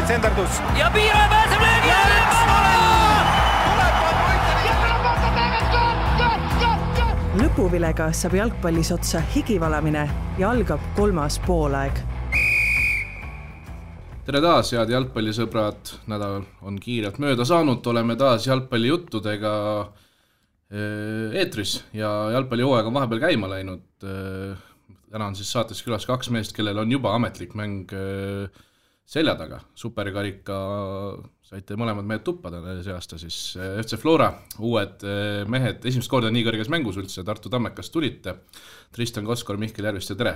senderdus. Ja Piiraja pääseb löögi alla! Lõpuvilega saab jalgpallis otsa higivalamine ja algab 3. poolaeg. Tere taas, head jalgpallisõbrad. Nädal on kiirelt mööda saanud. Oleme taas jalgpallijuttudega eetris ja jalgpallihooaeg on vahepeal käima läinud. Täna on siis saates külas 2 meest, kellel on juba ametlik mäng selja taga. Superkarika saite mõlemad mehed tuppada see aasta siis FC Flora, uued mehed, esimest korda nii kõrges mängus üldse, Tartu Tammekast tulite. Tristan Koskor, Mihkel Järvist ja tere!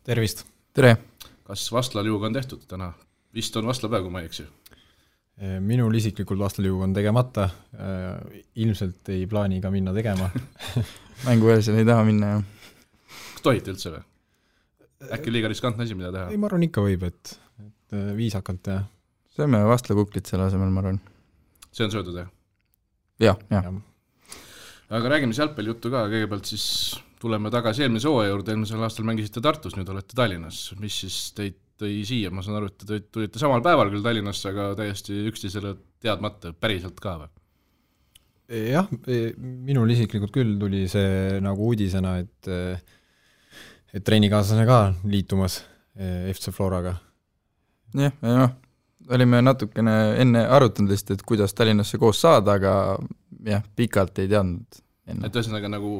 Tervist! Tere! Kas Vastlaliuga on tehtud täna? Vist on Vastlapäev, kui ma ei eksi. Minul isiklikult Vastlaliuga on tegemata, ilmselt ei plaani ka minna tegema. Mänguvälisel ei taha minna, jah. Kas tohite üldse või? Äkki liiga riskantne asi, mida teha? Ei, ma arvan ikka võib, et viisakalt ja... Sööme Vastlakuklit selle asemel, ma arvan. See on söödud, jah? Jah. Aga räägime jalgpallijuttu ka, kõigepealt siis tuleme tagasi eelmise hooaja juurde, eelmisel aastal mängisite Tartus, nüüd olete Tallinnas. Mis siis teid tõi siia? Ma saan aru, et te tulite samal päeval küll Tallinnasse, aga täiesti üksteisele teadmata, päriselt ka või? Jah, minul isiklikult küll tuli see nagu uudisena, et treenikaaslane ka liitumas FC Floraga. Jah, olime natukene enne arutanud lihtsalt, et kuidas Tallinnasse koos saada, aga jah, pikalt ei teadnud enne. Et ühesõnaga nagu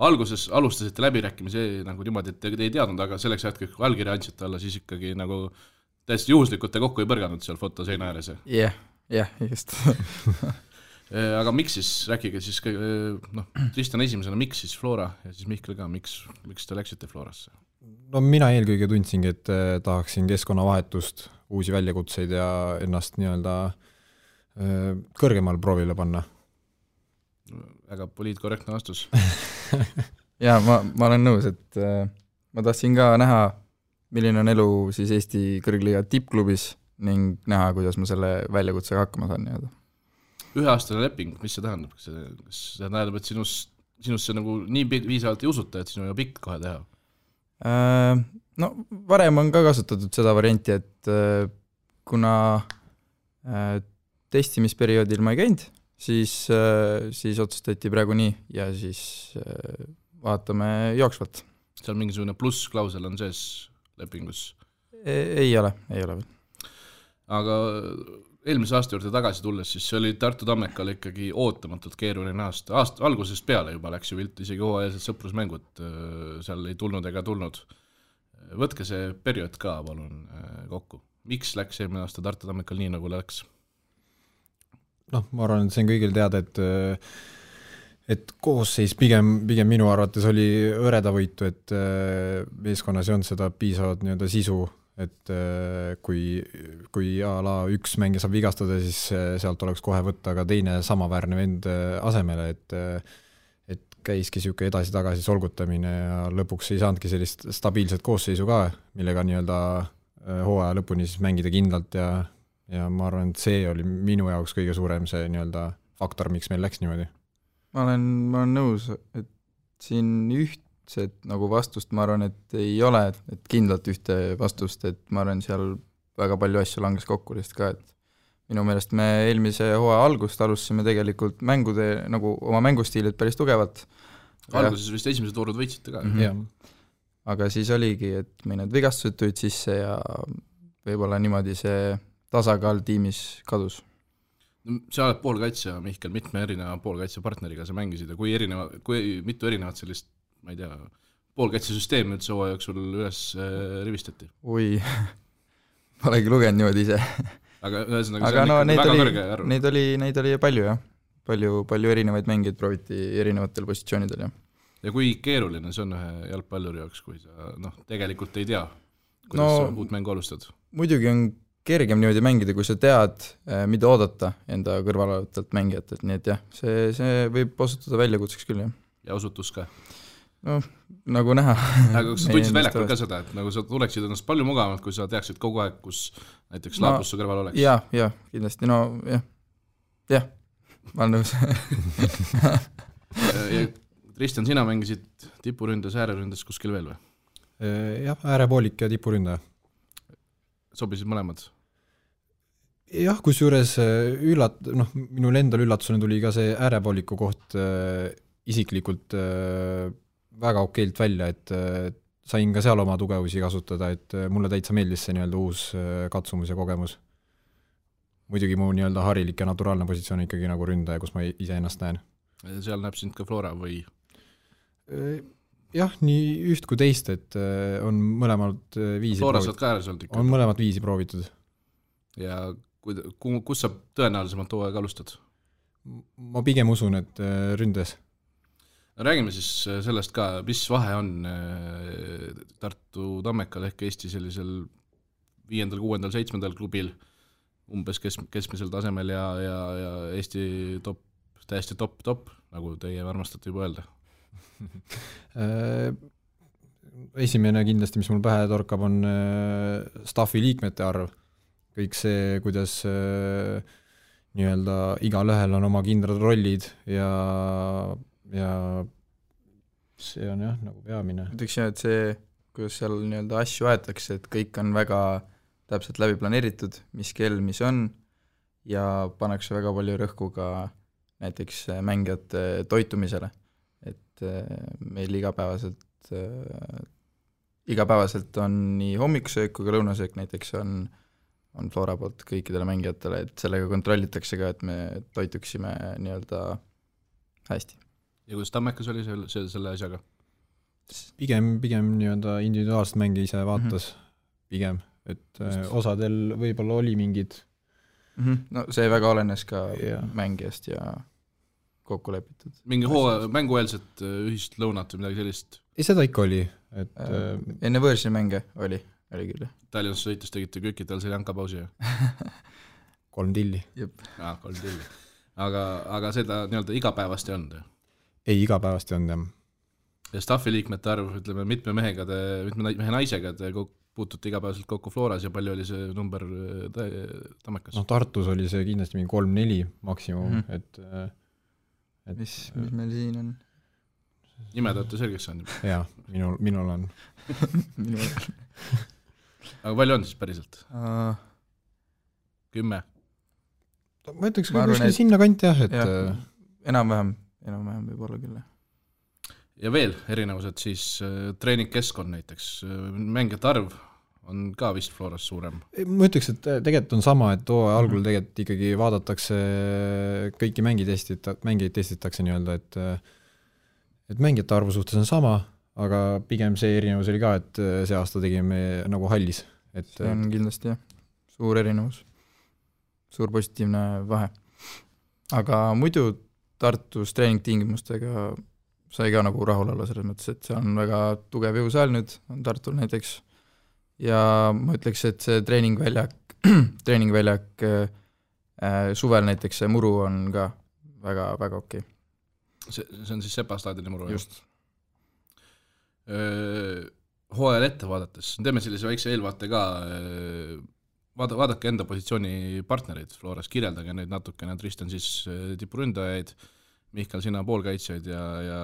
alguses alustasite läbirääkimisi nagu niimoodi, et te ei teadnud, aga selleks hetkeks, kui allkirja andsite alla, siis ikkagi nagu täiesti juhuslikult te kokku ei põrganud seal fotoseina ääres. Jah, just. Aga miks siis, rääkige siis, Tristan esimesena, miks siis Flora ja siis Mihkel ka, miks te läksite Florasse? No mina eelkõige tundsingi, et tahaksin keskkonnavahetust, uusi väljakutseid ja ennast nii-öelda kõrgemal proovile panna. Väga poliitkorrektne vastus. Ja ma olen nõus, et ma tahtsin ka näha, milline on elu siis Eesti kõrgliiga tippklubis ning näha, kuidas ma selle väljakutsega hakkama saan. 1-aastane leping, mis see tähendab? Kas see tähendab, et sinusse nagu nii viisavalt ei usuta, et sinu ja pikk kohe teha? No varem on ka kasutatud seda varianti, et kuna testimisperioodil ma ei käinud, siis otsustati praegu nii ja siis vaatame jooksvalt. Seal mingisugune plussklausel on sees lepingus? Ei ole veel. Aga eelmise aasta juurde tagasi tulles, siis see oli Tartu Tammekal ikkagi ootamatult keeruline aasta. Algusest peale juba läks ju vilt, isegi hooajalised sõprusmängud seal ei tulnud ega tulnud. Võtke see periood ka palun kokku. Miks läks eelmine aasta Tartu Tammekal nii nagu läks? Ma arvan, et see on kõigil teada, et koosseis pigem minu arvates oli õreda võitu, et meeskonnas ei olnud seda piisavalt nii-öelda sisu, et kui ala üks mängija saab vigastada, siis sealt oleks kohe võtta ka teine samaväärne vend asemele, et käiski siuke edasi-tagasi solgutamine ja lõpuks ei saanudki sellist stabiilset koosseisu ka, millega nii-öelda hooaja lõpuni siis mängida kindlalt ja ma arvan, et see oli minu jaoks kõige suurem see nii-öelda faktor, miks meil läks niimoodi. Ma olen nõus, et siin ühtset nagu vastust ma arvan, et ei ole, et kindlalt ühte vastust, et ma arvan, seal väga palju asju langes kokku lihtsalt ka, et minu meelest me eelmise hooaja algust alustasime tegelikult mängude, nagu oma mängustiilid päris tugevalt. Alguses vist esimesed voorud võitsite ka. Aga siis oligi, et meil need vigastused tulid sisse ja võib-olla niimoodi see tasakaal tiimis kadus. Sa oled poolkaitsja, Mihkel, mitme erineva poolkaitsepartneriga sa mängisid ja kui mitu erinevat sellist, ma ei tea, poolkaitsesüsteemi üldse hooaja jooksul üles rivistati? Oi, ma olegi lugenud niimoodi ise. Aga ühesõnaga see on ikka väga kõrge arv. Neid oli palju, jah. Palju erinevaid mängijaid prooviti erinevatel positsioonidel, jah. Ja kui keeruline see on ühe jalgpalluri jaoks, kui sa tegelikult ei tea, kuidas sa uut mängu alustad? Muidugi on kergem niimoodi mängida, kui sa tead, mida oodata enda kõrvalolevalt mängijat, et nii et jah, see võib osutuda väljakutseks küll, jah. Ja osutus ka? No, nagu näha. Aga kas sa tundsid väljakul ka seda, et nagu sa tuleksid ennast palju mugavamalt, kui sa teaksid kogu aeg, kus näiteks Laapus su kõrval oleks? Jah, kindlasti, jah, ma olen nõus. Tristan, sina mängisid tipuründes, ääreründes kuskil veel või? Jah, äärepoolik ja tipuründe. Sobisid mõlemad? jah, kusjuures minul endal üllatusena tuli ka see äärepooliku koht isiklikult väga okeilt välja, et sain ka seal oma tugevusi kasutada, et mulle täitsa meeldis see nii-öelda uus katsumus ja kogemus. Muidugi mu nii-öelda harilik ja naturaalne positsioon ikkagi nagu ründaja, kus ma ise ennast näen. Seal näeb sind ka Flora või? Jah, nii üht kui teist, et on mõlemad viisi Flora saad ka ääres olnud ikka? On mõlemad viisi proovitud. Ja kus sa tõenäolisemalt hooaega alustad? Ma pigem usun, et ründes. Räägime siis sellest ka, mis vahe on Tartu Tammekal ehk Eesti sellisel 5., 6., 7. klubil umbes keskmisel tasemel ja Eesti täiesti top, nagu teie armastate juba öelda? Esimene kindlasti, mis mul pähe torkab, on staffi liikmete arv. Kõik see, kuidas nii-öelda igal ühel on oma kindrad rollid ja see on jah, nagu peamine. Ütleks jah, et see, kuidas seal nii-öelda asju aetakse, et kõik on väga täpselt läbi planeeritud, mis kell, mis on, ja pannakse väga palju rõhku ka näiteks mängijate toitumisele. Et meil igapäevaselt on nii hommikusöök kui ka lõunasöök näiteks on Flora poolt kõikidele mängijatele, et sellega kontrollitakse ka, et me toituksime nii-öelda hästi. Ja kuidas Tammekas oli selle asjaga? Pigem nii-öelda individuaalset mängi ise vaatas, pigem, et osadel võib-olla oli mingid. No see väga olenes ka mängijast ja kokku lepitud. Mingi mängueelset ühist lõunat või midagi sellist? Ei, seda ikka oli. Et, enne võõrsi mänge oli küll. Tallinnas sõites tegite kökitel selle jankapausi? 3 tilli. 3 tilli. Aga seda nii-öelda igapäevast ei olnud? Ei, igapäevast ei olnud, jah. Ja staffi liikmete arv, ütleme, mitme mehe naisega te puutute igapäevaselt kokku Floras ja palju oli see number Tammekas? Tartus oli see kindlasti mingi 3-4 maksimum, et mis meil siin on? Nimed olete selgeks saanud? Jaa, minul on. Aga palju on siis päriselt? 10? Ma ütleks ka kuskil sinna kanti jah, et enam-vähem võib olla küll. Ja veel erinevused siis treeningkeskkond näiteks, mängijate arv on ka vist Floras suurem? Ma ütleks, et tegelikult on sama, et algul tegelikult ikkagi vaadatakse kõiki mängijaid testitakse nii-öelda, et mängijate arvu suhtes on sama, aga pigem see erinevus oli ka, et see aasta tegime nagu hallis. See on kindlasti jah, suur erinevus, suur positiivne vahe. Aga muidu Tartus treeningtingimustega sai ka nagu rahul olla selles mõttes, et see on väga tugev jõusaal nüüd, on Tartul näiteks, ja ma ütleks, et see treeningväljak suvel näiteks see muru on ka väga, väga okei. See on siis Sepa staadioni muru? Just. Hooajal ette vaadates, teeme sellise väikse eelvaate ka, vaadake enda positsiooni partnerid Floras, kirjeldage neid natukene, Tristan siis tipuründajaid, Mihkel, sina poolkaitsjaid ja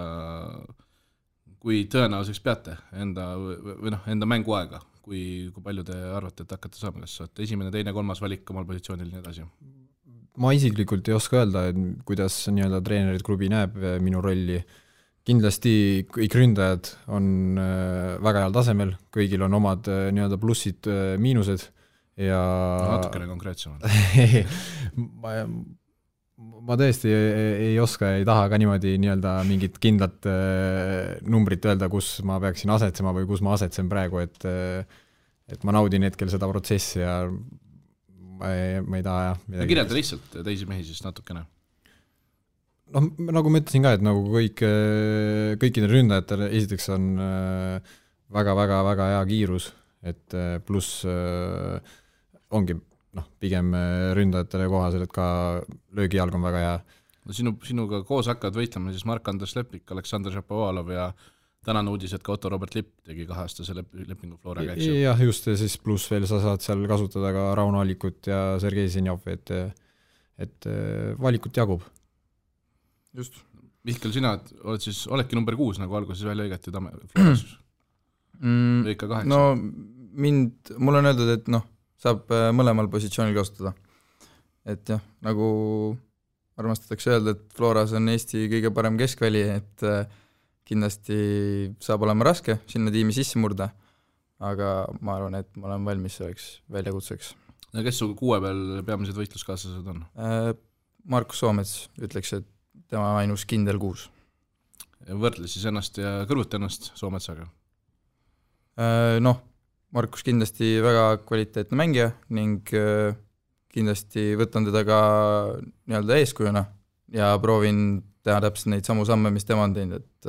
kui tõenäoliseks peate enda mänguaega, kui palju te arvate, et hakkate saama, kas saate esimene, teine, 3. valik omal positsioonil nii edasi? Ma isiklikult ei oska öelda, kuidas nii-öelda treenerid klubi näeb minu rolli. Kindlasti kõik ründajad on väga heal tasemel, kõigil on omad nii-öelda plussid, miinused ja natukene konkreetsemalt. Ma tõesti ei oska, ei taha ka niimoodi nii-öelda mingit kindlat numbrit öelda, kus ma peaksin asetsema või kus ma asetsen praegu, et ma naudin hetkel seda protsessi ja ma ei taha midagi. Kirjelda lihtsalt teisi mehi siis natukene. Nagu ma ütlesin ka, et nagu kõikidel ründajatel esiteks on väga-väga-väga hea kiirus, et pluss ongi pigem ründajatele kohasel, et ka löögijalg on väga hea. Sinuga koos hakkavad võitlema siis Mark-Andres Lepik, Aleksandr Šapovalov ja tänane uudis, et ka Otto Robert Lipp tegi 2-aastase lepingu Floraga. Jah, just, ja siis pluss veel sa saad seal kasutada ka Rauno Alikut ja Sergei Zinjovi, et valikut jagub. Just. Mihkel, sina oledki number 6, nagu alguses välja õigati Floras? Lõika 8? No mul on öeldud, et saab mõlemal positsioonil kasutada. et jah, nagu armastatakse öelda, et Floras on Eesti kõige parem keskväli, et kindlasti saab olema raske sinna tiimi sisse murda, aga ma arvan, et ma olen valmis selleks väljakutseks. Ja kes su 6 peal peamised võitluskaaslased on? Markus Soomets ütleks, et tema ainus kindel 6. Võrdle siis ennast ja kõrvuti ennast Soometsaga? Noh, Markus kindlasti väga kvaliteetne mängija ning kindlasti võtan teda ka nii-öelda eeskujuna ja proovin teha täpselt neid samu samme, mis tema on teinud, et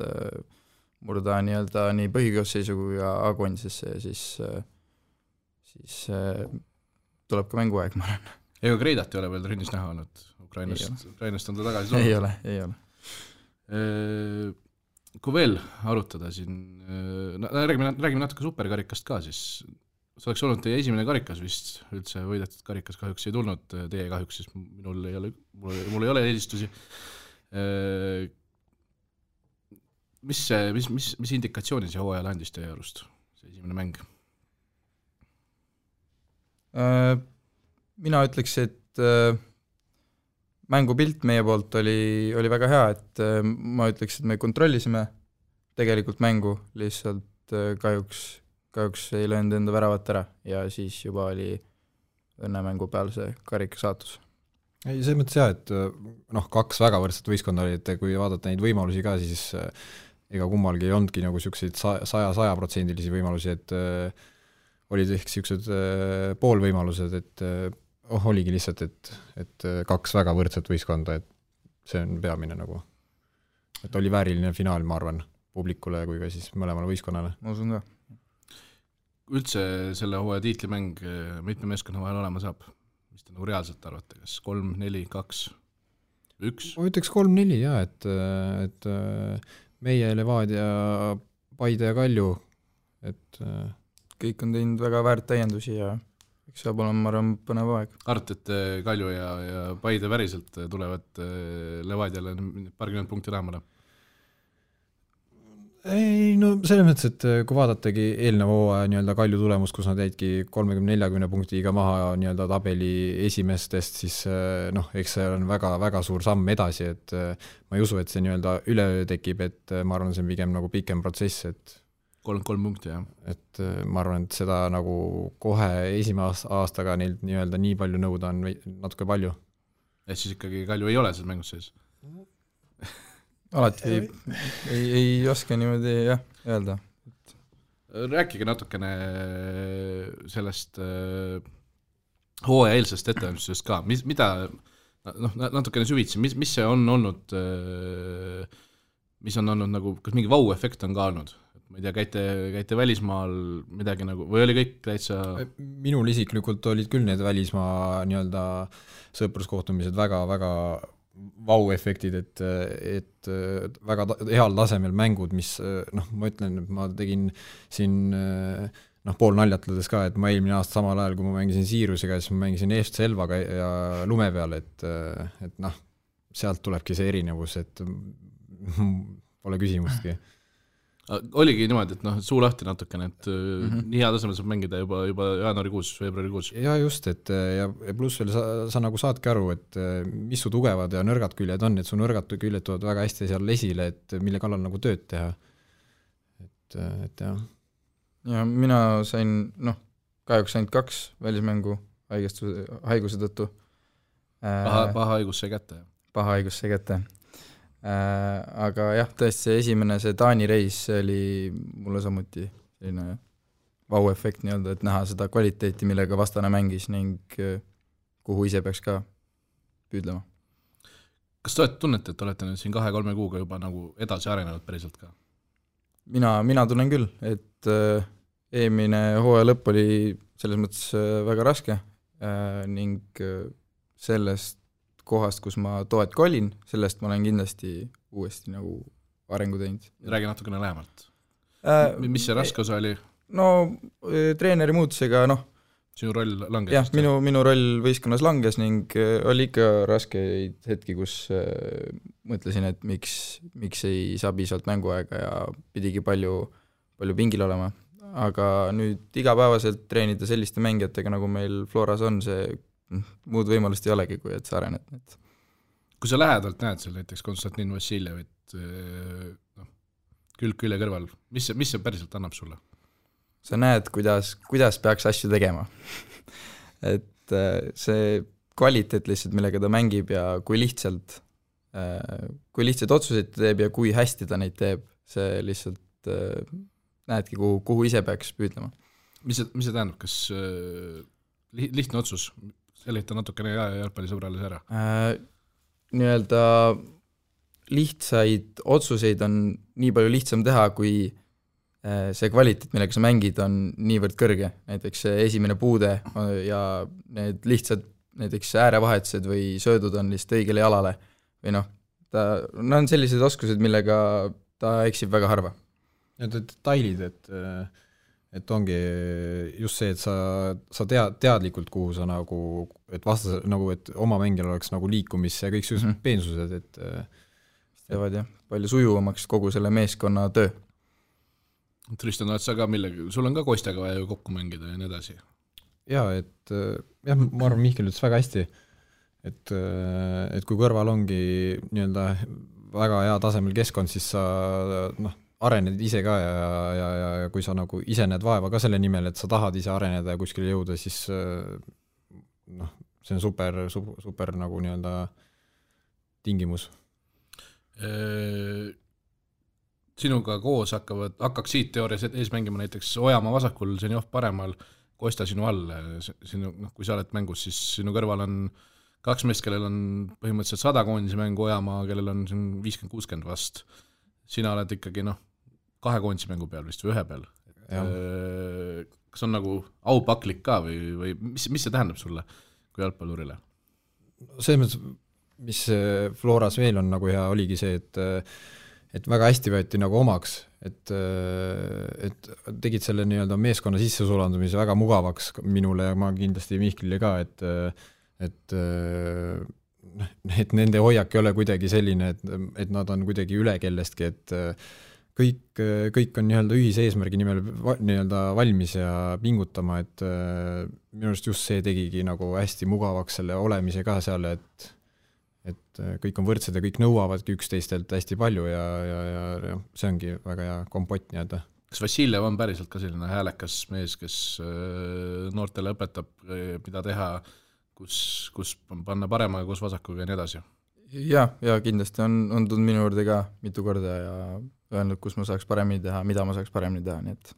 murda nii-öelda nii põhikoosseisu kui ka A-koondisesse ja siis tuleb ka mänguaeg, ma arvan. Ega Kreidat ei ole veel trennis näha olnud, Ukrainast on ta tagasi tulnud? Ei ole. Kui veel arutada siin, räägime natuke superkarikast ka, siis see oleks olnud teie esimene karikas vist, üldse võidetud karikas kahjuks ei tulnud, teie kahjuks, siis mul ei ole eelistusi. Mis indikatsiooni see hooajal andis teie arust, see esimene mäng? Mina ütleks, et mängupilt meie poolt oli väga hea, et ma ütleks, et me kontrollisime tegelikult mängu, lihtsalt kahjuks ei löönud enda väravat ära ja siis juba oli õnnemängu peal see karika saatus. Ei, see mõttes jah, et 2 väga võrdset võistkonda oli, et kui vaadata neid võimalusi ka, siis ega kummalgi ei olnudki nagu selliseid 100% võimalusi, et olid ehk sellised poolvõimalused, et oligi lihtsalt, et 2 väga võrdset võistkonda, et see on peamine nagu, et oli vääriline finaal, ma arvan, publikule kui ka siis mõlemale võistkonnale. Ma usun ka. Üldse selle hooaja tiitlimäng mitme meeskonna vahel olema saab? Mis te nagu reaalselt arvate, kas 3, 4, 2, 1? Ma ütleks 3-4 jah, et meie Levadia, Paide ja Kalju, et kõik on teinud väga väärt täiendusi ja eks saab olema, ma arvan, põnev aeg. Arvat, et Kalju ja Paide päriselt tulevad Levadiale parkümmend punkti lähemale? Ei, no selles mõttes, et kui vaadatagi eelneva hooaja nii-öelda Kalju tulemus, kus nad jäidki 30-40 punktiga maha nii-öelda tabeli esimestest, siis eks see on väga suur samm edasi, et ma ei usu, et see nii-öelda üleöö tekib, et ma arvan, see on pigem nagu pikem protsess, et 3 punkti, jah. Et ma arvan, et seda nagu kohe esimese aastaga neilt nii-öelda nii palju nõuda on natuke palju. Et siis ikkagi Kalju ei ole selles mängus sees? Alati ei oska niimoodi jah öelda. Rääkige natukene sellest hooaja eelsest ettevalmistusest ka, mida natukene süvitsi, mis see on olnud, mis on olnud nagu, kas mingi vau-efekt on ka olnud? Ma ei tea, käite välismaal midagi nagu, või oli kõik täitsa? Minul isiklikult olid küll need välismaa nii-öelda sõpruskohtumised väga vau-efektid, et väga heal tasemel mängud, mis ma ütlen, et ma tegin siin pool naljatledes ka, et ma eelmine aasta samal ajal, kui ma mängisin Siirusega, siis ma mängisin EFC Elvaga ja lume peal, et sealt tulebki see erinevus, et pole küsimustki. Oligi niimoodi, et suu lahti natukene, et nii hea tasemel saab mängida juba jaanuarikuus, veebruarikuus. Ja just, et ja pluss veel sa nagu saadki aru, et mis su tugevad ja nõrgad küljed on, et su nõrgad küljed tulevad väga hästi seal esile, et mille kallal nagu tööd teha. Et jah. Ja mina sain, kahjuks ainult 2 välismängu haiguse tõttu. Paha haigus sai kätte. Paha haigus sai kätte. Aga jah, tõesti see esimene, see Taani reis, see oli mulle samuti selline vau-efekt nii-öelda, et näha seda kvaliteeti, millega vastane mängis ning kuhu ise peaks ka püüdlema. Kas te tunnete, et olete nüüd siin 2-3 kuuga juba nagu edasi arenenud päriselt ka? Mina tunnen küll, et eelmine hooaja lõpp oli selles mõttes väga raske ning sellest kohast, kus ma toetki olin, sellest ma olen kindlasti uuesti nagu arengu teinud. Räägi natukene lähemalt. Mis see raske osa oli? Treeneri muutusega, Sinu roll langes? Jah, minu roll võistkonnas langes ning oli ikka raskeid hetki, kus mõtlesin, et miks ei saa piisavalt mänguaega ja pidigi palju pingil olema. Aga nüüd igapäevaselt treenida selliste mängijatega, nagu meil Floras on, see muud võimalust ei olegi, kui et sa arened. Kui sa lähedalt näed seal näiteks Konstantin Vassiljevit külg külje kõrval, mis see päriselt annab sulle? Sa näed, kuidas peaks asju tegema. Et see kvaliteet lihtsalt, millega ta mängib ja kui lihtsalt otsuseid teeb ja kui hästi ta neid teeb, see lihtsalt näedki, kuhu ise peaks püüdlema. Mis see tähendab, kas lihtne otsus, seleta natukene jalgpallisõbrales ära? Nii-öelda lihtsaid otsuseid on nii palju lihtsam teha, kui see kvaliteet, millega sa mängid, on niivõrd kõrge. Näiteks esimene puude ja need lihtsad näiteks äärevahetused või söödud on lihtsalt õigele jalale. Või ta on sellised oskused, millega ta eksib väga harva. Need detailid, et ongi just see, et sa teadlikult, kuhu sa nagu, et vastas, nagu, et oma mängijal oleks nagu liikumis ja kõik sellised peensused, et teevad jah, palju sujuvamaks kogu selle meeskonna töö. Tristan, oled sa ka sul on ka Kostjaga vaja ju kokku mängida ja nii edasi? Jaa, et ma arvan, Mihkel ütles väga hästi, et kui kõrval ongi nii-öelda väga hea tasemel keskkond, siis sa arened ise ka ja kui sa nagu ise näed vaeva ka selle nimel, et sa tahad ise areneda ja kuskile jõuda, siis see on super nagu nii-öelda tingimus. Sinuga koos hakkaksid teoorias ees mängima näiteks Ojamaa vasakul, Zenjov paremal, Kostja sinu all. Kui sa oled mängus, siis sinu kõrval on 2 meest, kellel on põhimõtteliselt 100 koondise mängu, Ojamaa, kellel on 50-60 vast. Sina oled ikkagi 2 koondise mängu peal vist või 1 peal. Kas on nagu aupaklik ka või mis see tähendab sulle kui jalgpallurile? See mõttes, mis Floras veel on nagu hea, oligi see, et väga hästi võeti nagu omaks, et tegid selle nii-öelda meeskonna sissesulandumise väga mugavaks minule ja ma kindlasti Mihklile ka, et nende hoiak ei ole kuidagi selline, et nad on kuidagi üle kellestki, et kõik on nii-öelda ühise eesmärgi nimel nii-öelda valmis ja pingutama, et minu arust just see tegigi nagu hästi mugavaks selle olemise ka seal, et kõik on võrdsed ja kõik nõuavadki üksteistelt hästi palju ja see ongi väga hea kompott nii-öelda. Kas Vassiljev on päriselt ka selline häälekas mees, kes noortele õpetab, mida teha, kus panna parema ja kus vasakuga ja nii edasi? Ja kindlasti on tulnud minu juurde ka mitu korda ja öelnud, kus ma saaks paremini teha, mida ma saaks paremini teha. Nii et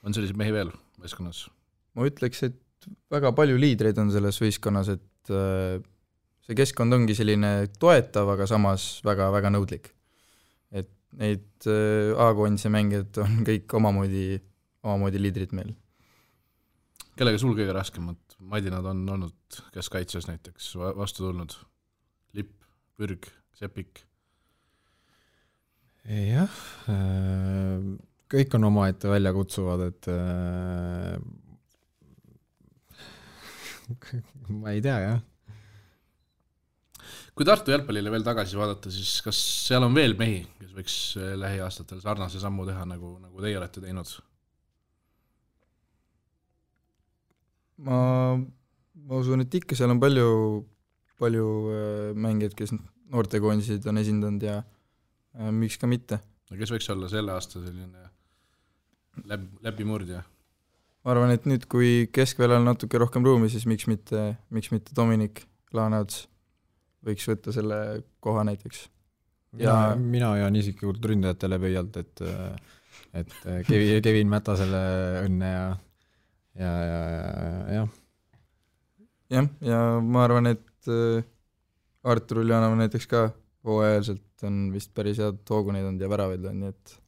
on selliseid mehi veel võistkonnas? Ma ütleks, et väga palju liidreid on selles võistkonnas, et see keskkond ongi selline toetav, aga samas väga-väga nõudlik. Et neid A-koondise mängijad on kõik omamoodi liidrid meil. Kellega sul kõige raskemad madinad on olnud, kes kaitses näiteks vastu tulnud? Lipp, Pürg, Sepik? Jah, kõik on omaette välja kutsuvad, et ma ei tea, jah. Kui Tartu jalgpallile veel tagasi vaadata, siis kas seal on veel mehi, kes võiks lähiaastatel sarnase sammu teha, nagu teie olete teinud? Ma usun, et ikka seal on palju mängijad, kes noortekoondisid on esindanud ja miks ka mitte. Kes võiks olla selle aasta selline läbimurdja? Ma arvan, et nüüd, kui keskväljal natuke rohkem ruumi, siis miks mitte Dominik Laaneots võiks võtta selle koha näiteks. Mina jään isiklikult ründajatele pöialt, et Kevin Mätasele õnne ja ma arvan, et Artur Uljanov näiteks ka hooajalselt on vist päris head hooguneid olnud ja väravaid on, nii et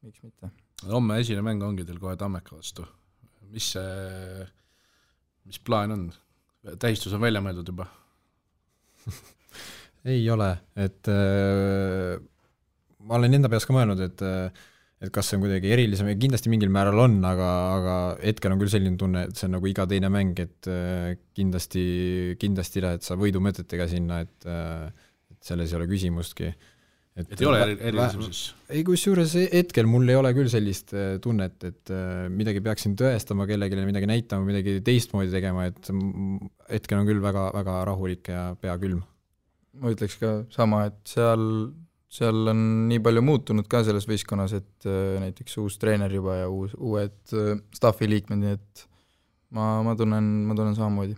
miks mitte. Homme esine mäng ongi teil kohe Tammeka vastu. Mis plaan on? Tähistus on välja mõeldud juba? Ei ole, et ma olen enda peas ka mõelnud, et kas see on kuidagi erilisem ja kindlasti mingil määral on, aga hetkel on küll selline tunne, et see on nagu iga teine mäng, et kindlasti lähed sa võidumõtetega sinna, et selles ei ole küsimustki. et ei ole erilisem siis? Ei, kusjuures hetkel mul ei ole küll sellist tunnet, et midagi peaksin tõestama kellelegi, midagi näitama, midagi teistmoodi tegema, et hetkel on küll väga, väga rahulik ja pea külm. Ma ütleks ka sama, et seal on nii palju muutunud ka selles võistkonnas, et näiteks uus treener juba ja uued staffi liikmed, nii et ma tunnen samamoodi.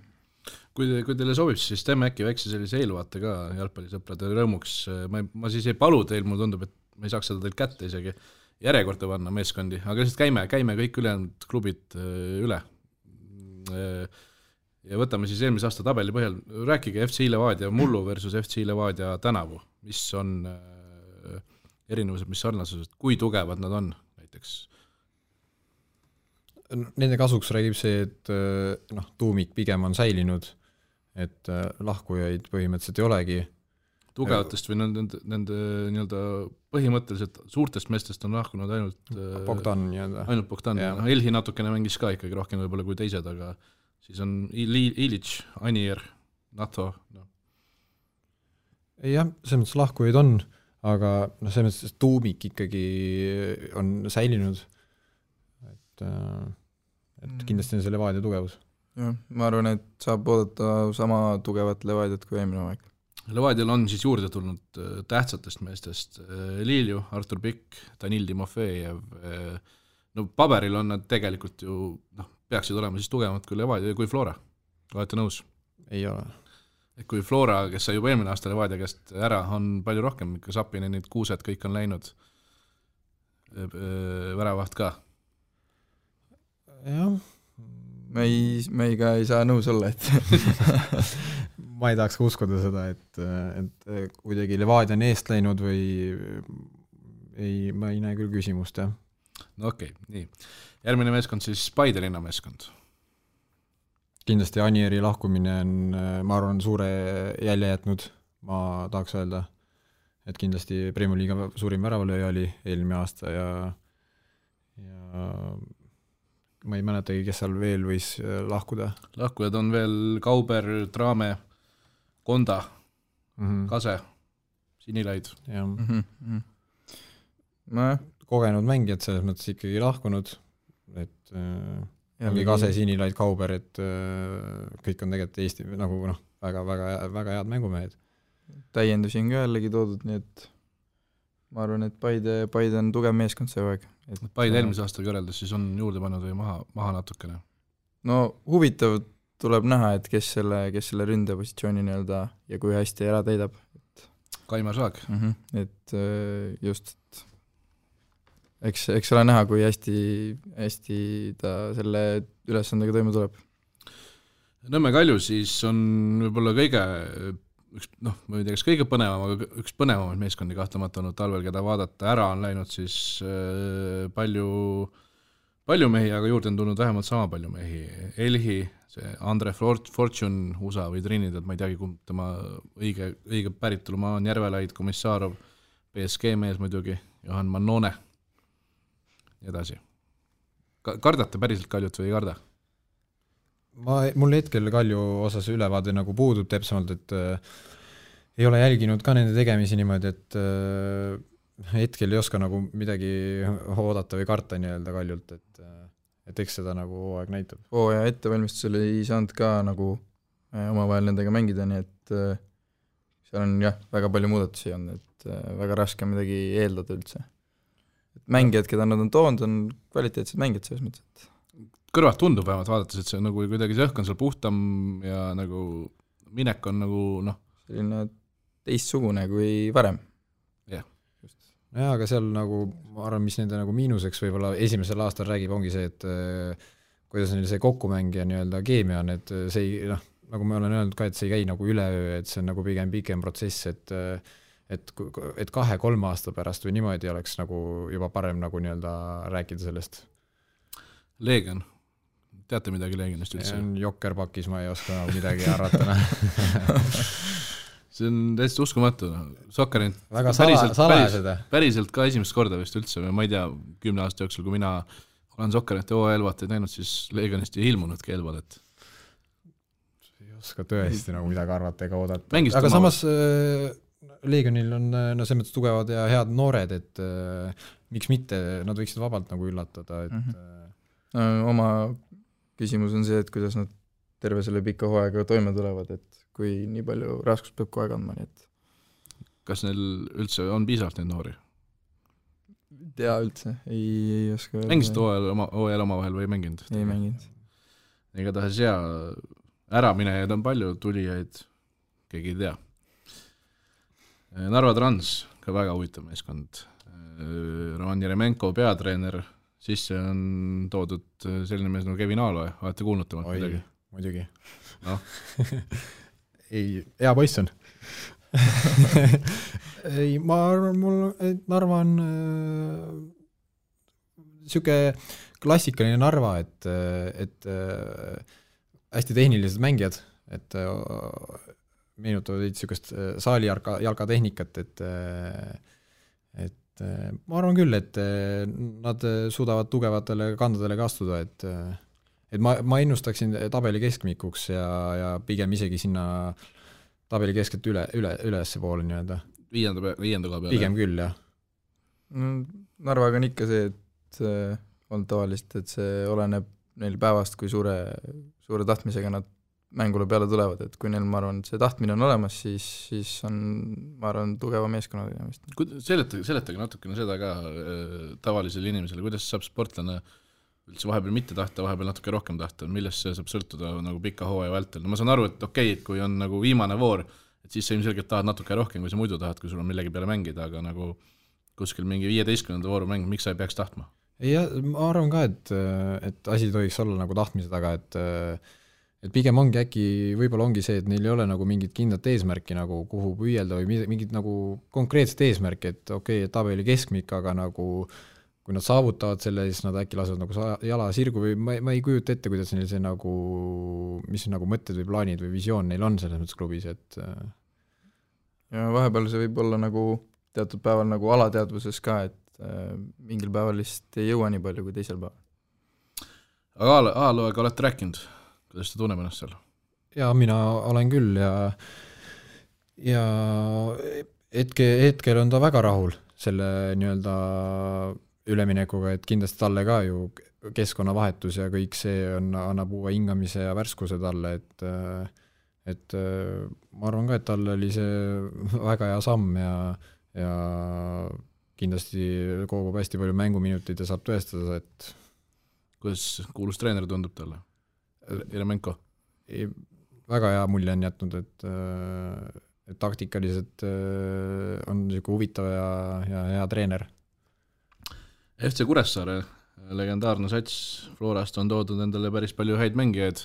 Kui teile sobib, siis teeme äkki väikse sellise eelvaate ka jalgpallisõprade rõõmuks. Ma siis ei palu teil, mul tundub, et ma ei saaks seda teil kätte isegi järjekorda panna meeskondi, aga lihtsalt käime kõik ülejäänud klubid üle. Ja võtame siis eelmise aasta tabeli põhjal. Rääkige FC Levadia mullu versus FC Levadia tänavu. Mis on erinevused, mis sarnasused, kui tugevad nad on näiteks? Nende kasuks räägib see, et tuumik pigem on säilinud, et lahkujaid põhimõtteliselt ei olegi. Tugevatest või nende nii-öelda põhimõtteliselt suurtest meestest on lahkunud ainult Bogdan. Ainult Bogdan. Elhi natukene mängis ka ikkagi rohkem võib-olla kui teised, aga siis on Ilic, Anier, Nato. Jah, selles mõttes lahkujaid on, aga selles mõttes tuumik ikkagi on säilinud. Et kindlasti on see Levadia tugevus. Ja, ma arvan, et saab oodata sama tugevat Levadiat kui eelmine aeg. Levadial on siis juurde tulnud tähtsatest meestest Lilju, Artur Pikk, Danil Timofejev. No paberil on nad tegelikult ju peaksid olema siis tugevad kui Levadia ja kui Flora. Olete nõus? Ei ole. Kui Flora, kes sai juba eelmine aasta Levadia käest ära, on palju rohkem, ikka Sapine, need kuused kõik on läinud väravaht ka. Jah. Me ei saa nõus olla, et ma ei tahaks ka uskuda seda, et kuidagi Levadia on eest läinud või ma ei näe küll küsimust, jah. No okei, nii. Järgmine meeskond siis Paide linna meeskond. Kindlasti Anieri lahkumine on, ma arvan, suure jälje jätnud, ma tahaks öelda, et kindlasti Premier Liiga suurim väravalööja oli eelmine aasta ja ma ei mäletagi, kes seal veel võis lahkuda. Lahkujad on veel Kauber, Traame, Konda, Kase, Sinilaid. Kogenud mängijad selles mõttes ikkagi lahkunud, et ongi Kase, Sinilaid, Kauber, et kõik on tegelikult Eesti nagu väga, väga, väga head mängumehed. Täiendusi on ka jällegi toodud, nii et ma arvan, et Paide on tugev meeskond see aeg. Paide eelmise aastaga võrreldes siis on juurde pannud või maha natukene? No huvitav tuleb näha, et kes selle ründepositsiooni nii-öelda ja kui hästi ära täidab. Kaimar Saag. Et just, eks ole näha, kui hästi ta selle ülesandega toime tuleb. Nõmme Kalju siis on võib-olla ma ei tea, kas kõige põnevam, aga üks põnevamaid meeskondi kahtlemata olnud talvel, keda vaadata ära on läinud siis palju mehi, aga juurde on tulnud vähemalt sama palju mehi. Elhi, see Andre Fortune, USA või Trinidad, ma ei teagi, kumb tema õige päritolumaa on, Järvelaid, Komissarov, PSG mees muidugi, Johan Mannone, edasi. Kardate päriselt Kaljut või ei karda? Mul hetkel Kalju osas ülevaade nagu puudub täpsemalt, et ei ole jälginud ka nende tegemisi niimoodi, et hetkel ei oska nagu midagi oodata või karta nii-öelda Kaljult, et eks seda nagu aeg näitab. Ja ettevalmistusel ei saanud ka nagu omavahel nendega mängida, nii et seal on väga palju muudatusi on, et väga raske midagi eeldada üldse. Mängijad, keda nad on toonud, on kvaliteetsed mängijad selles mõttes, et kõrvalt tundub vähemalt vaadates, et see nagu kuidagi see õhk on seal puhtam ja nagu minek on nagu selline teistsugune kui varem. Jah. Jaa, aga seal nagu, ma arvan, mis nende nagu miinuseks võib-olla esimesel aastal räägib, ongi see, et kuidas neil see kokkumäng ja nii-öelda keemia on, et see ei, nagu ma olen öelnud ka, et see ei käi nagu üleöö, et see on nagu pigem pikem protsess, et 2-3 aasta pärast või niimoodi oleks nagu juba parem nagu nii-öelda rääkida sellest. Leegion. Teate midagi Leegionist üldse? See on Jokkerpakis, ma ei oska midagi arvata. See on täiesti uskumatu. Sokkerint väga salajased. Päriselt ka esimest korda vist üldse. Ma ei tea, 10 aasta jooksul, kui mina olen Sokkerint ja OL-vaat näinud, siis Leegionist ei ilmunud keelval, et ei oska tõesti nagu midagi arvata ega oodata. Mängist aga samas Leegionil on no selles mõttes tugevad ja head noored, et miks mitte, nad võiksid vabalt nagu üllatada, et oma küsimus on see, et kuidas nad terve selle pika hooaega toime tulevad, et kui nii palju raskust peab kohe kandma, nii et kas neil üldse on piisavalt neid noori? tea üldse, ei oska öelda. Mängisid hooajal omavahel või ei mänginud? Ei mänginud. Igatahes äraminejaid on palju, tulijaid keegi ei tea. Narva Trans, ka väga huvitav meeskond. Roman Jeremenko peatreener, sisse on toodud selline mees nagu Kevin Aaloe, olete kuulnud temalt midagi? Muidugi. No. Ei, hea poiss on. Ei, ma arvan, Narva on siuke klassikaline Narva, et hästi tehnilised mängijad, et meenutavad siukest saali jalkatehnikat, et ma arvan küll, et nad suudavad tugevatele kandadele ka astuda, et ma ennustaksin tabeli keskmikuks ja pigem isegi sinna tabeli keskelt ülesse poole nii-öelda. Viienda koha peale. Pigem küll, jah. Narvaga on ikka see, et on tavalist, et see oleneb neil päevast, kui suure tahtmisega nad mängule peale tulevad, et kui neil, ma arvan, see tahtmine on olemas, siis on, ma arvan, tugeva meeskonna tegemist. Seletage natukene seda ka tavalisele inimesele, kuidas saab sportlane üldse vahepeal mitte tahta, vahepeal natuke rohkem tahta, millest see saab sõltuda nagu pika hooaja vältel. No ma saan aru, et okei, et kui on nagu viimane voor, et siis sa ilmselgelt tahad natuke rohkem, kui sa muidu tahad, kui sul on millegi peale mängida, aga nagu kuskil mingi 15. vooru mäng, miks sa ei peaks tahtma? Ja ma arvan ka, et asi tohiks olla nagu tahtmise taga, et pigem ongi äkki, võib-olla ongi see, et neil ei ole nagu mingit kindlat eesmärki nagu kuhu püüelda või mingit nagu konkreetset eesmärki, et okei, tabeli keskmik, aga nagu kui nad saavutavad selle, siis nad äkki lasevad nagu jala sirgu või ma ei kujuta ette, kuidas neil see nagu, mis nagu mõtted või plaanid või visioon neil on selles mõttes klubis, et ja vahepeal see võib olla nagu teatud päeval nagu alateadvuses ka, et mingil päeval lihtsalt ei jõua nii palju kui teisel päeval. Aga Aaloega olete rääkinud, kuidas ta tunneb ennast seal? Ja mina olen küll ja hetkel on ta väga rahul selle nii-öelda üleminekuga, et kindlasti talle ka ju keskkonnavahetus ja kõik see annab uue hingamise ja värskuse talle, et ma arvan ka, et talle oli see väga hea samm ja kindlasti kogub hästi palju mänguminutit ja saab tõestada, et kuidas kuulus treener tundub talle? Jeremenko? Väga hea mulje on jätnud, et taktikaliselt on niisugune huvitav ja hea treener. FC Kuressaare, legendaarne sats, Florast on toodud endale päris palju häid mängijaid.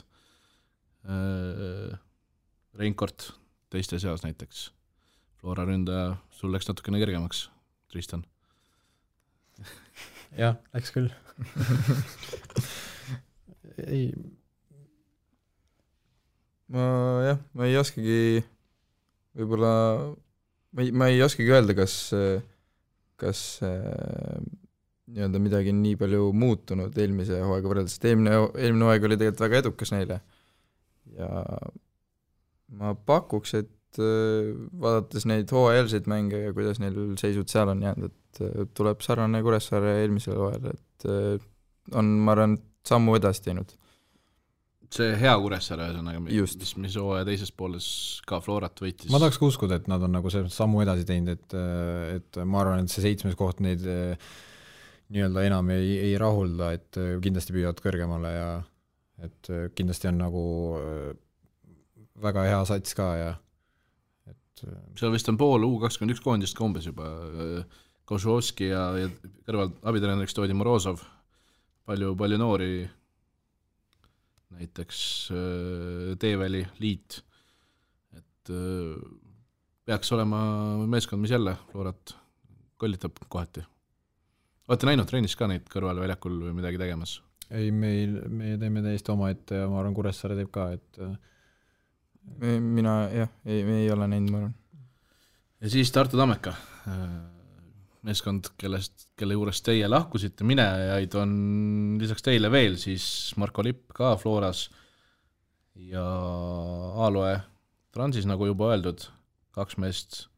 Reinkort teiste seas näiteks. Flora ründaja, sul läks natukene kergemaks, Tristan. Jah, läks küll. Ei. Ma ei oskagi võib-olla, ma ei oskagi öelda, kas nii-öelda midagi nii palju muutunud eelmise hooaega võrreldes, et eelmine hooaeg oli tegelikult väga edukas neile ja ma pakuks, et vaadates neid hooajalseid mänge ja kuidas neil seisud seal on jäänud, et tuleb sarnane Kuressaare eelmisel hooajal, et on, ma arvan, sammu edasi teinud. See hea Kuressaare mis hooaja teises pooles ka Florat võitis. Ma tahaks uskuda, et nad on nagu see sammu edasi teinud, et ma arvan, et see 7. koht neid nii-öelda enam ei rahulda, et kindlasti püüavad kõrgemale ja et kindlasti on nagu väga hea sats ka ja et seal vist on pool U21 koondist ka umbes juba Košovski ja kõrval abitreeneriks toodi Morozov, palju noori, näiteks Teeväli liit, et peaks olema meeskond, mis jälle Florat kollitab kohati. Olete näinud treenis ka neid kõrval väljakul või midagi tegemas? Ei, me teeme täiesti oma ette ja ma arvan, Kuressaare teeb ka, et mina, jah, me ei ole näinud, ma arvan. Ja siis Tartu Tammeka, meeskond, kelle juures teie lahkusite, minejaid on lisaks teile veel, siis Marko Lipp ka Floras ja Aaloe Transis, nagu juba öeldud, 2 meest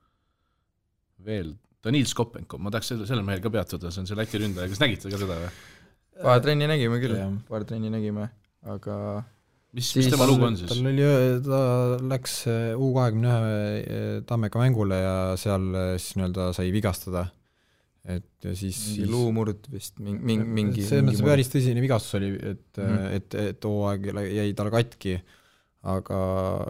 veel, Danil Skopenko, ma tahaks selle mehel ka peatuda, see on see Läti ründaja, kas nägite ka seda või? Paar trenni nägime küll, aga mis tema lugu on siis? Ta läks U21 Tammeka mängule ja seal siis nii-öelda sai vigastada. Et ja siis luumurd vist, mingi see päris tõsine vigastus oli, et hooaeg jäi tal katki, aga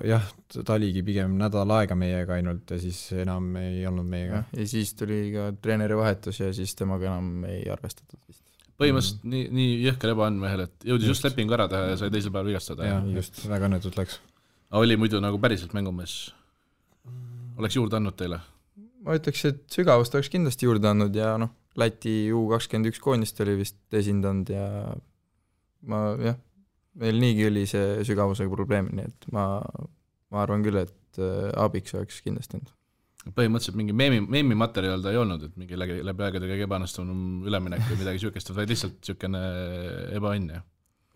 jah, ta oligi pigem nädal aega meiega ainult ja siis enam ei olnud meiega. Ja siis tuli ka treeneri vahetus ja siis temaga enam ei arvestatud vist. Põhimõtteliselt nii jõhker ebaandmehel, et jõudis just lepingu ära teha ja sai teisel päeval vigastada. Ja, just, väga õnnetult läks. Aga oli muidu nagu päriselt mängumees? Oleks juurde andnud teile? Ma ütleks, et sügavust oleks kindlasti juurde andnud ja Läti U21 koondist oli vist esindanud ja meil niigi oli see sügavusega probleem, nii et ma arvan küll, et abiks oleks kindlasti olnud. Põhimõtteliselt mingi meemi materjal ta ei olnud, et mingi läbi aegade kõige ebaõnnestunum üleminek või midagi sükest, vaid lihtsalt sükene ebaõnn.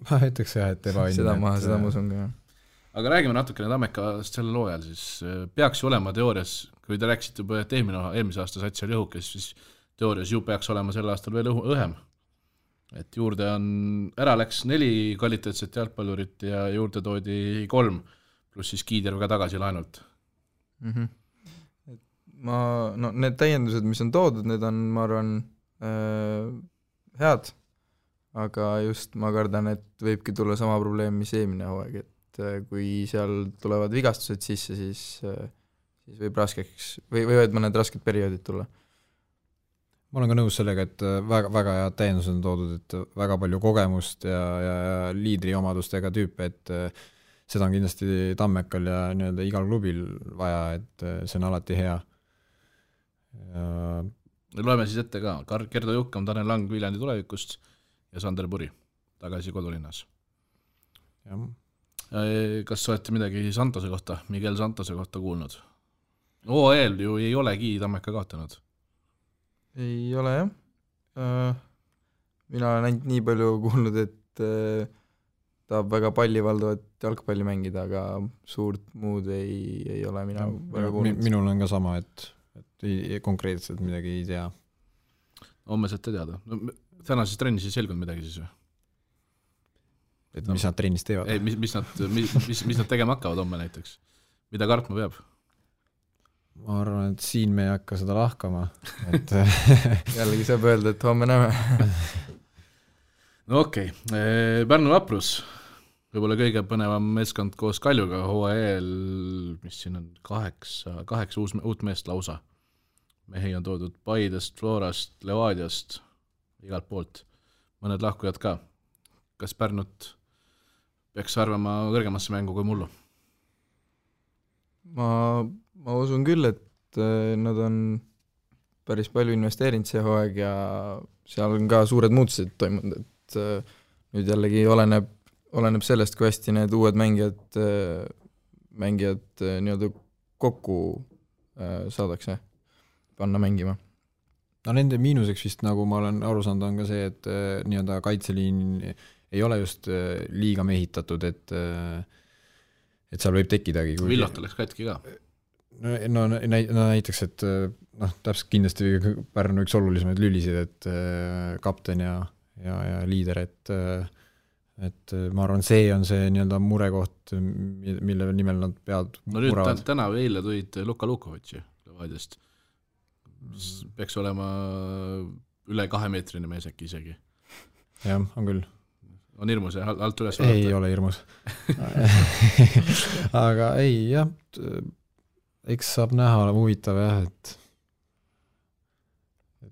Ma ütleks jah, et ebaõnn. Seda ma usun ka. Aga räägime natukene Tammekast sellel loojal, siis peaks ju olema teoorias, kui te rääksite juba, et eelmise aasta sats oli õhukes, siis teoorias ju peaks olema sel aastal veel õhem. Et juurde ära läks 4 kvaliteetset jalgpallurit ja juurde toodi 3, pluss siis Kiider ka tagasi laenult. Need täiendused, mis on toodud, need on, ma arvan, head, aga just ma kardan, et võibki tulla sama probleem, mis eelmine hooaeg, et kui seal tulevad vigastused sisse, siis võib raskeks, võivad mõned rasked perioodid tulla. Ma olen ka nõus sellega, et väga head täiendused on toodud, et väga palju kogemust ja liidri omadustega tüüpe, et seda on kindlasti Tammekal ja nii-öelda igal klubil vaja, et see on alati hea. Loeme siis ette ka, Gerdo Jukkam, Tanel Lang Viljandi tulevikust ja Sander Puri tagasi kodulinnas. Kas olete midagi Santose kohta, Miguel Santose kohta kuulnud? OEL ju ei olegi Tammeka kaotanud. Ei ole jah. Mina olen ainult nii palju kuulnud, et tahab väga pallivaldavat jalgpalli mängida, aga suurt muud ei ole mina väga kuulnud. Minul on ka sama, et konkreetselt midagi ei tea. Homme saate teada. Tänases trennis ei selgunud midagi siis või? Et mis nad trennis teevad? Ei, mis nad tegema hakkavad homme näiteks? Mida kartma peab? Ma arvan, et siin me ei hakka seda lahkama. Et jällegi saab öelda, et homme näeme. No okei. Pärnu Vaprus. Võib-olla kõige põnevam meeskond koos Kaljuga HL, mis siin on 8 uut meest lausa. Mehi on toodud Paidest, Florast, Levadiast, igalt poolt. Mõned lahkujad ka. Kas Pärnut peaks arvama kõrgemasse mängu kui mullu? Ma usun küll, et nad on päris palju investeerinud see hooaeg ja seal on ka suured muutused toimunud, et nüüd jällegi oleneb sellest, kui hästi need uued mängijad nii-öelda kokku saadakse panna mängima. No nende miinuseks vist, nagu ma olen aru saanud, on ka see, et nii-öelda kaitseliin ei ole just liiga mehitatud, et seal võib tekkidagi. Villot oleks katki ka. No näiteks, et täpselt kindlasti Pärnu üks olulisemaid lülisid, et kapten ja liider, et ma arvan, see on see nii-öelda murekoht, mille nimel nad peavad muravad. Täna või eile tulid Luka Lukovitši Levadiast. Peaks olema üle 2-meetrine mees äkki isegi. Jah, on küll. On hirmus ja alt üles vaadata? Ei ole hirmus. Aga ei, jah, eks saab näha, ole huvitav jah, et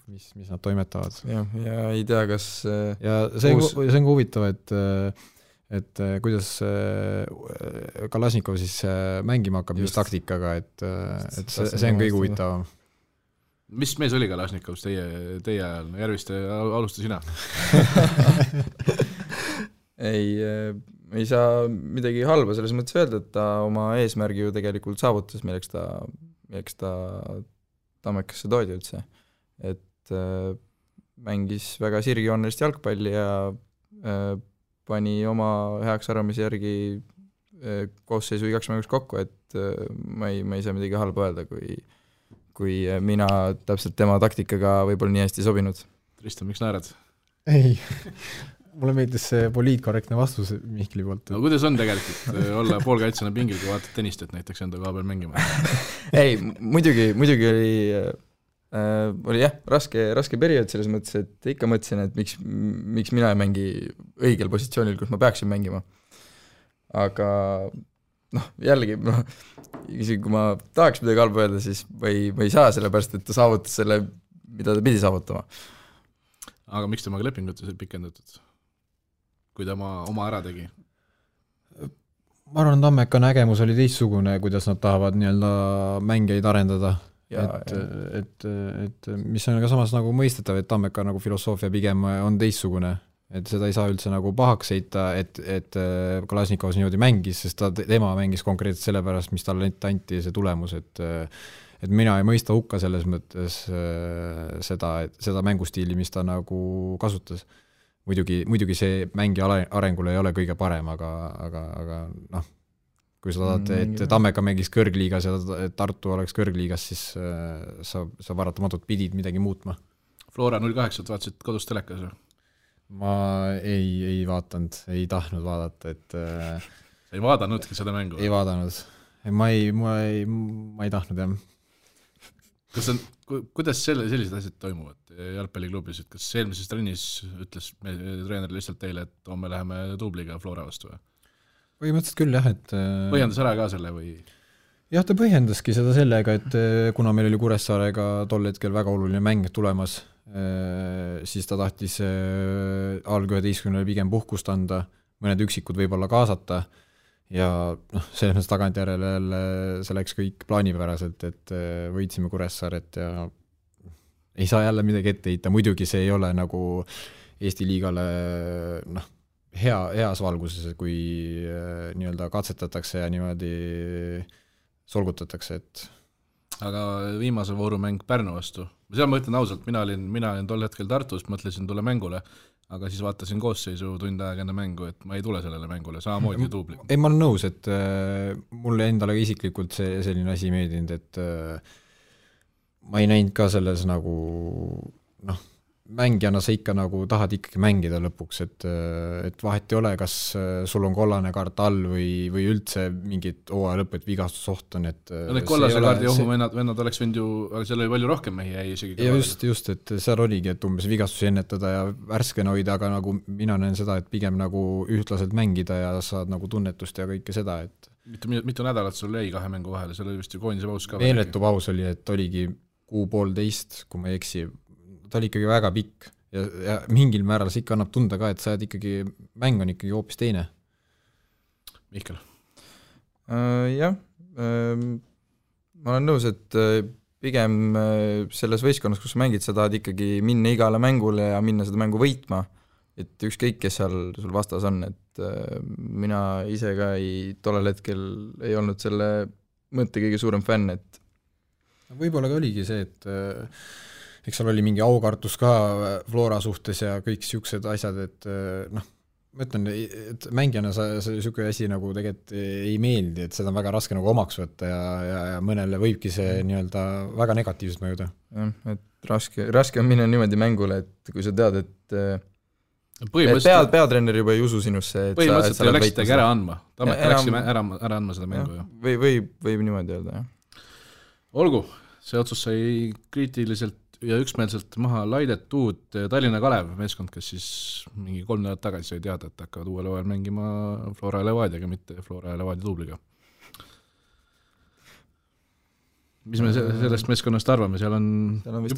mis nad toimetavad. Ja ei tea, kas ja see on huvitav, et kuidas Kalasnikov siis mängima hakkab just taktikaga, et see on kõige huvitavam. Mis mees oli Kalasnikovs teie ajal? Järviste, alusta sina. ei saa midagi halba selles mõttes öelda, et ta oma eesmärgi ju tegelikult saavutas, milleks ta Tammekasse toodi üldse. Et mängis väga sirgjoonelist jalgpalli ja pani oma heaks arvamise järgi koosseisu igaks mängus kokku, et ma ei saa midagi halba öelda, kui mina täpselt tema taktikaga võib-olla nii hästi sobinud. Tristan, miks naerad? Ei, mulle meeldis see poliitkorrektne vastus Mihkli poolt. No kuidas on tegelikult olla poolkaitsena pingil, kui vaatad tennistet näiteks enda koha peal mängima? Ei, muidugi oli jah, raske periood selles mõttes, et ikka mõtlesin, et miks mina ei mängi õigel positsioonil, kus ma peaksin mängima. Aga jällegi, isegi kui ma tahaks midagi halba öelda, siis ma ei saa sellepärast, et ta saavutas selle, mida ta pidi saavutama. Aga miks temaga lepingut pikendatud, kui ta oma ära tegi? Ma arvan, Tammeka nägemus oli teistsugune, kuidas nad tahavad nii-öelda mängijaid arendada. Et mis on ka samas nagu mõistetav, et Tammeka nagu filosoofia pigem on teistsugune. Et seda ei saa üldse nagu pahaks heita, et Kalasnikovs niimoodi mängis, sest tema mängis konkreetselt sellepärast, mis talle anti see tulemus, et mina ei mõista hukka selles mõttes seda mängustiili, mis ta nagu kasutas. Muidugi see mängija arengul ei ole kõige parem, aga kui sa tahad, et Tammeka mängis kõrgliigas ja Tartu oleks kõrgliigas, siis sa varatamatult pidid midagi muutma. Flora 08 vaatasid kodus telekas või? Ma ei vaatanud, ei tahtnud vaadata, et sa ei vaadanudki seda mängu? Ei vaadanud. Ma ei tahtnud, jah. Kuidas sellised asjad toimuvad jalgpalliklubis, et kas eelmises trennis ütles treener lihtsalt teile, et me läheme duubliga Flora vastu või? Põhimõtteliselt küll, jah, et põhjendas ära ka selle või? Jah, ta põhjendaski seda sellega, et kuna meil oli Kuressaarega tol hetkel väga oluline mäng tulemas, siis ta tahtis alg-11 pigem puhkust anda, mõned üksikud võib-olla kaasata ja selles tagantjärele see läks kõik plaanipäraselt, et võitsime Kuressaaret ja ei saa jälle midagi ette heita, muidugi see ei ole nagu Eesti liigale heas valguses, kui nii-öelda katsetatakse ja niimoodi solgutatakse, et aga viimase voorumäng Pärnu vastu, seal ma ütlen ausalt, mina olin tol hetkel Tartus, mõtlesin tule mängule, aga siis vaatasin koosseisu tund aega enne mängu, et ma ei tule sellele mängule, samamoodi duubli. Ei, ma olen nõus, et mulle endale isiklikult selline asi meeldinud, et ma ei näinud ka selles nagu mängijana sa ikka nagu tahad ikkagi mängida lõpuks, et vahet ei ole, kas sul on kollane kaart all või üldse mingit hooaja lõpp, et vigastusoht on, et need kollase kaardi ohuvennad oleks võinud ju, aga seal oli palju rohkem mehi jäi isegi. Ja just, et seal oligi, et umbes vigastusi ennetada ja värskena hoida, aga nagu mina näen seda, et pigem nagu ühtlaselt mängida ja saad nagu tunnetust ja kõike seda, et mitu nädalat sul jäi 2 mängu vahele, seal oli vist ju koondise paus ka. Meeletu paus oli, et oligi 1,5, kui ma ei eksi, ta oli ikkagi väga pikk ja mingil määral see ikka annab tunda ka, et sa ikkagi, mäng on ikkagi hoopis teine. Mihkel? Jah, ma olen nõus, et pigem selles võistkonnas, kus sa mängid, sa tahad ikkagi minna igale mängule ja minna seda mängu võitma, et ükskõik, kes seal sul vastas on, et mina ise ka tollel hetkel ei olnud selle mõtte kõige suurem fänn, et võib-olla ka oligi see, et eks seal oli mingi aukartus ka Flora suhtes ja kõik siuksed asjad, et ma ütlen, et mängijana siuke asi nagu tegelikult ei meeldi, et seda on väga raske nagu omaks võtta ja mõnele võibki see nii-öelda väga negatiivselt mõjuda. Et raske on minna niimoodi mängule, et kui sa tead, et peatreener juba ei usu sinusse, et põhimõtteliselt ei läksidagi ära andma. Tammeka läksime ära andma seda mängu. Võib niimoodi öelda, jah. Olgu, see otsus sai kriitiliselt ja üksmeelselt maha laidetud Tallinna Kalev meeskond, kes siis mingi 3 nädalat tagasi sai teada, et hakkavad uuel hooajal mängima Flora ja Levadiaga, mitte Flora ja Levadia duubliga. Mis me sellest meeskonnast arvame, seal on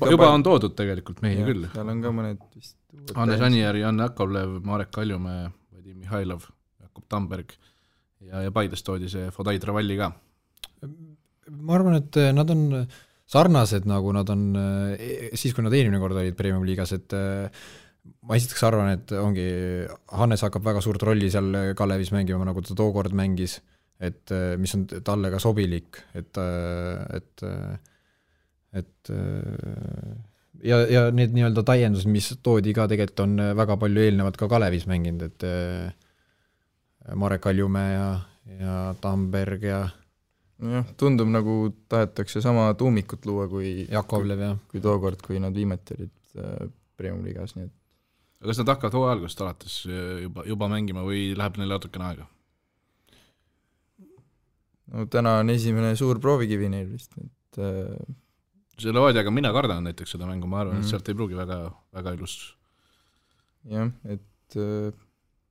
juba on toodud tegelikult mehi küll. Seal on ka mõned vist Hannes Anijärv, Janne Akovlev, Marek Kaljumäe, Vadim Mihhailov, Jakob Tamberg ja Paides toodi see Fodai Travalli ka. Ma arvan, et nad on sarnased, nagu nad on siis, kui nad eelmine kord olid Premium liigas, et ma esiteks arvan, et ongi, Hannes hakkab väga suurt rolli seal Kalevis mängima, nagu ta tookord mängis, et mis on talle ka sobilik, et ja need nii-öelda täiendused, mis toodi ka tegelikult on väga palju eelnevad ka Kalevis mänginud, et Marek Kaljumäe ja Tamberg ja jah, tundub nagu tahetakse sama tuumikut luua kui Jakovlev, jah. Kui tookord, kui nad viimati olid Premium liigas, nii et kas nad hakkavad hooaja algusest alates juba mängima või läheb neil natukene aega? No täna on esimene suur proovikivi neil vist, et selle Oodiaga mina kardan näiteks seda mängu, ma arvan, et sealt ei pruugi väga, väga ilus. jah, et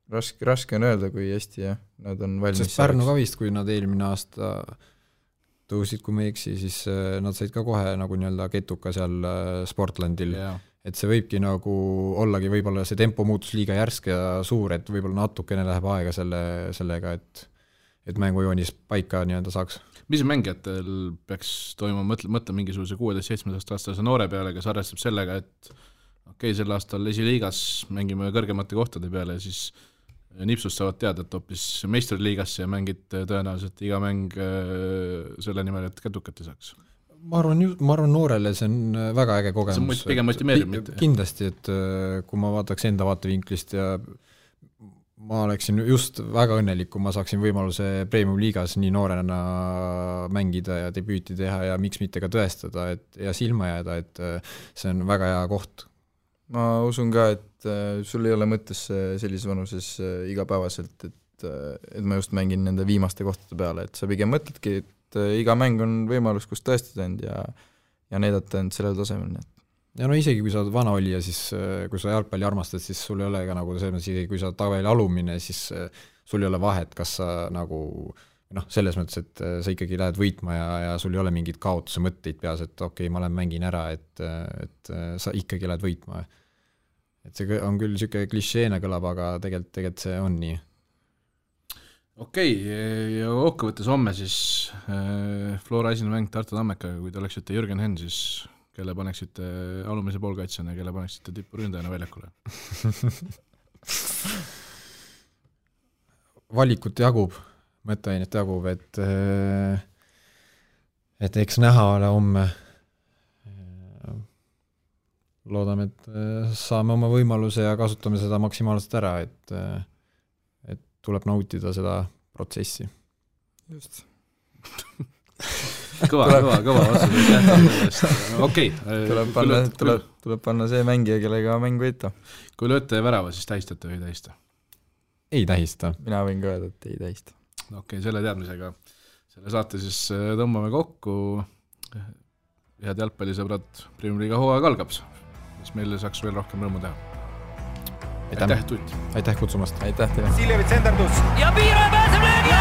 raske on öelda, kui hästi jah, nad on valmis. Sest Pärnu ka vist, kui nad eelmine aasta tõusid, kui ma ei eksi, siis nad said ka kohe nagu nii-öelda ketuka seal Sportlandil, et see võibki nagu ollagi võib-olla see tempo muutus liiga järsk ja suur, et võib-olla natukene läheb aega sellega, et mängujoonis paika nii-öelda saaks. Mis mängijatel peaks toimuma, mõtle mingisuguse 16-17 aastase noore peale, kes arvestab sellega, et okei, sel aastal esiliigas mängime kõrgemate kohtade peale ja siis nipsust saavad teada, et hoopis meistriliigasse ja mängid tõenäoliselt iga mäng selle nimel, et kädukat ei saaks. Ma arvan noorele see on väga äge kogemus. See on pigem motimeerib mitte. Kindlasti, et kui ma vaataks enda vaatevinklist ja ma oleksin just väga õnnelik, kui ma saaksin võimaluse Premium liigas nii noorena mängida ja debüüti teha ja miks mitte ka tõestada ja silma jääda, et see on väga hea koht. Ma usun ka, et sul ei ole mõttes sellises vanuses igapäevaselt, et ma just mängin nende viimaste kohtade peale, et sa pigem mõtledki, et iga mäng on võimalus, kus tõestada end ja näidata end sellel tasemel. Ja no isegi kui sa oled vana olija, siis kui sa jalgpalli armastad, siis sul ei ole ka nagu selles mõttes, kui sa tabeli alumine, siis sul ei ole vahet, kas sa nagu selles mõttes, et sa ikkagi lähed võitma ja sul ei ole mingid kaotuse mõtteid peas, et okei, ma lähen mängin ära, et sa ikkagi lähed võitma. Et see on küll siuke klišeena kõlab, aga tegelikult see on nii. Okei, ja kokkuvõttes homme siis Flora esimene mäng Tartu Tammekaga, kui te oleksite Jürgen Henn, siis kelle paneksite alumise poolkaitsjana ja kelle paneksite tipuründajana väljakule? Valikut jagub, mõtteainet jagub, et eks näha ole homme. Loodame, et saame oma võimaluse ja kasutame seda maksimaalselt ära, et tuleb nautida seda protsessi. Just. kõva vastus. Okei. Tuleb panna see mängija, kellega mäng võita. Kui lööte värava, siis tähistate või ei tähista? Ei tähista. Mina võin ka öelda, et ei tähista. Okei, selle teadmisega selle saate siis tõmbame kokku. Head jalgpallisõbrad, Premium liiga hooaeg algab, mis meile saaks veel rohkem rõõmu teha. Aitäh, Tutt! Aitäh kutsumast! Aitäh teile! Siljevits endardus! Ja Piiro pääseb löögi!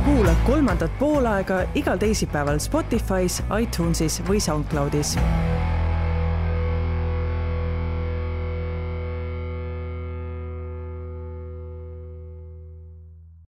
Kuula kolmandat poolaega igal teisipäeval Spotify's, iTunesis või SoundCloudis.